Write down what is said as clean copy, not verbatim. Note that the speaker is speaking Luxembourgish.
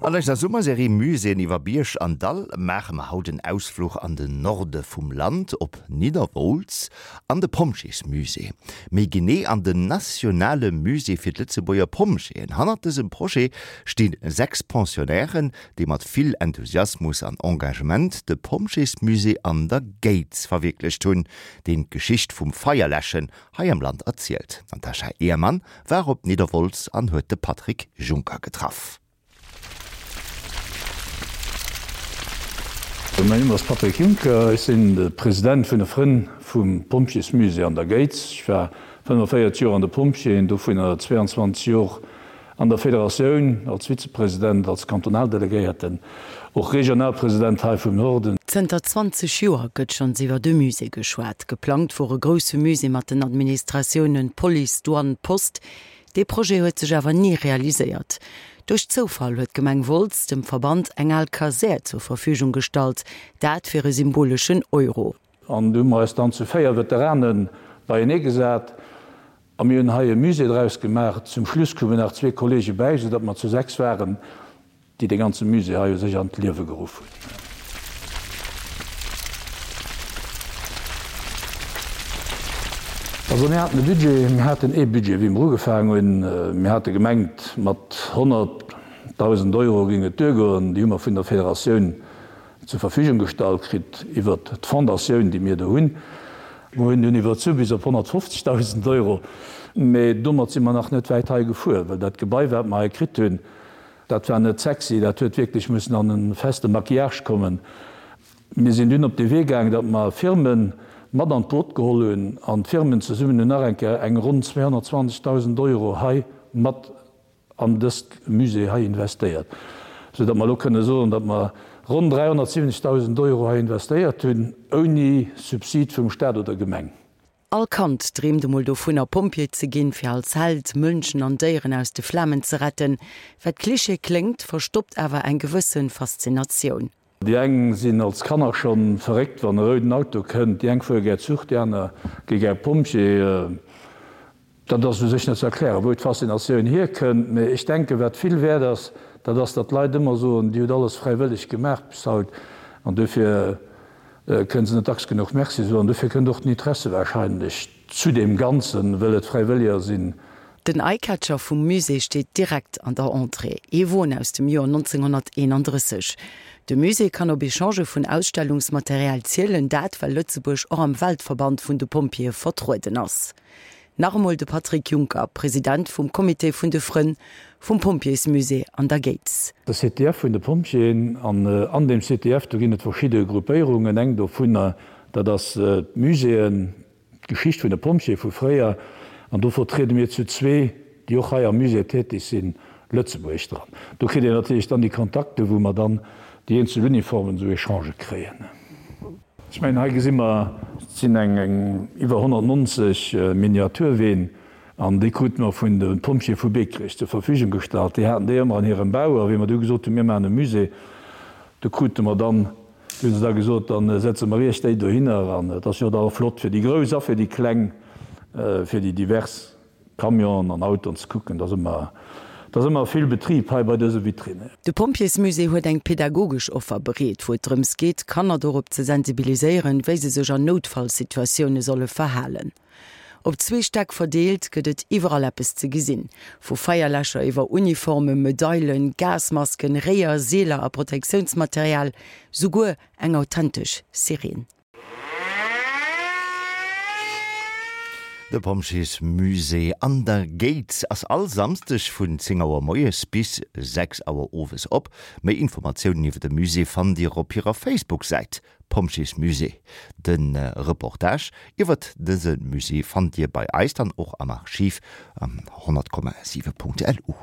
An eiser Summerserie Muséeën iwwer Bierg an Dall maache mer haut en Ausfluch an den Norde vum Land, op Nidderwolz an de Pompjeesmusée. Méi genee an den nationale Musée fir d'Lëtzebuerger Pompjeeën. Hannert dësem Projet sti 6 Pensionnairen, déi mat vill Enthusiasmus an Engagement de Pompjeesmusée an der Géiz verwierklecht hunn, deen d'Geschicht vum Feierläschen hei am Land erzielt. D'Natasha Ehrmann war op Nidderwolz an huet de Patrick Juncker getraff. Mäin Numm ass Patrick Juncker, ech sinn de President vun de Frënn vum Pompjeesmusée an der Géiz. Ech war 45 Joer an de Pompjeeën, dovunner 22 Jor an der Federatioun als Vizepresident, als Kantonaldelegéierten, och Regionalpresident hei vum Norden. Zënter 20 Joer gëtt schonns iwwer e Musée geschwat. Geplangt wor e grousse Musée mat den Administratiounen Police, Douane, Post. Dee Projet huet sech awer ni realiséiert. Duerch Zoufall huet d'Gemeng Wolz dem Verband eng al Kasär zur Verfügung gestallt, dat fir e symboleschen Euro. An du hu mer eis dann zu 4 Veteranen beienee gesat a mir hunn hei e Musée draus gemaach. Zum Schluss koumen nach zwee Kollege bäi, soudatt mer zu 6 waren, déi dee ganze Musée hei u sech an d'Liewe geruff hunn. Also mir haten e Budget, mir haten ee Budget, wéi mer ugefaangen hunn. Mir hate gemengt, mat 100.000 Euro géing et duergoen. Déi hu mer vun der Federatioun zur Verfügung gestallt kritt iwwert d'Fondatioun, déi mir do hunn. Mir hunn dunn iwwerzu bis op 150.000 Euro, mä domat si mer nach net wäit hei gefuer, well dat Gebai, wat mer hei kritt hunn, dat war net sexy, dat huet wierklech mussen an e feste Maquillage kommen. Mir sinn dunn op de Wee gaangen, datt mer Firme mat an d'Boot geholl hunn an d'Firmen zesummen hunn nach eng Kéier eng ronn 220.000 Euro hei mat an dëst Musée hei investéiert, sou datt mer elo kënne soen, datt mer ronn 370.000 Euro hei investéiert hunn, ouni Subsid vum Stat oder Gemeng. All Kand dreemt emol dovunner, Pompjee ze ginn, fir als Held Mënschen an Déieren aus de Flamen ze retten. Wat Klischee kléngt, verstoppt awer eng gewësse Faszinatioun. Déi eng sinn als Kanner schonn verréckt, wann e rouden Auto kënnt, déi eng fuere gär Zuch, déi aner gi gär Pompjee. Dat ass u sech net ze erklären, wou d'Faszinatioun hierkënnt, mee ech denken, wat vill wäert ass, dat ass, datt d'Leit ëmmer soen, Dir hutt alles fräiwëlleg gemaach bis haut, an dofir kënne se net dacks genuch Merci soen. Dofir kënnt och den Interesse warscheinlech zu deem Ganzen, wëll et Fräiwëlleger sinn. Den Eyecatcher vum Musée steet direkt an der Entrée, ee Won aus dem Joer 1931. De Musée kann op Echangë vun Ausstellungsmaterial zielen, dat well Lëtzebuerg och am Weltverband vun de Pompjeeë vertrueden ass. Nach emol de Patrick Juncker, President vum Comité vun de Frënn vum Pompjeesmusée an der Géiz. De CTF vun de Pompjeeën, an an deem CTF do ginn et verschidde Gruppéierungen, eng dovunner dat ass d'Muséeën, d'Geschicht vun de Pompjeeë vu fréier, an do vertriede mir zu zwee, déi och hei am Musée tätig sinn, Lëtzebuerg dran. Do kritt een natierlech dann déi Kontakte wou mer dann déi eenzel Uniformen esou Echangë kréien. Ech mengen, hei gesi mer, et sinn eng iwwer 190 Miniaturween, an déi krute mer vun de Pompjeeë vu Beekrech zur Verfügung gestallt. Déi haten déi ëmmer an hirem Bau, a wéi mer du gesot hunn, mir maachen e Musée, du krute mer dann, du hu se da gesot, da setze mer iech déi dohinner. An et ass jo da och flott fir déi Grouss a fir déi Kleng, fir déi divers. Camionen an Autoen ze kucken, et ass ëmmer, et ass ëmmer vill Betrib hei bei dëse Vitrinen. De Pompjeesmusée huet eng pedagogesch Offer bereet, wou et drëms geet, Kanner dorop ze sensibiliséieren, wéi se sech an Noutfallsituatioune solle verhalen. Op zwee Stäck verdeelt gëtt et iwwerall eppes ze gesinn, vu Feierläscher iwwer Uniformen, Medailen, Gasmasken, Réier, Seeler a Protektiounsmaterial, souguer eng authentesch Sireen. De Pompjeesmusée an der Géiz ass all Samsdeg vun 10 Auer moies bis 6 Auer owes op. Méi Informatiounen iwwer de Musée fannt Dir op hirer Facebook-Säit Pompjeesmusée. De Reportage iwwert dëse Musée fannt Dir bei eis dann och am Archiv am 100,7.lu.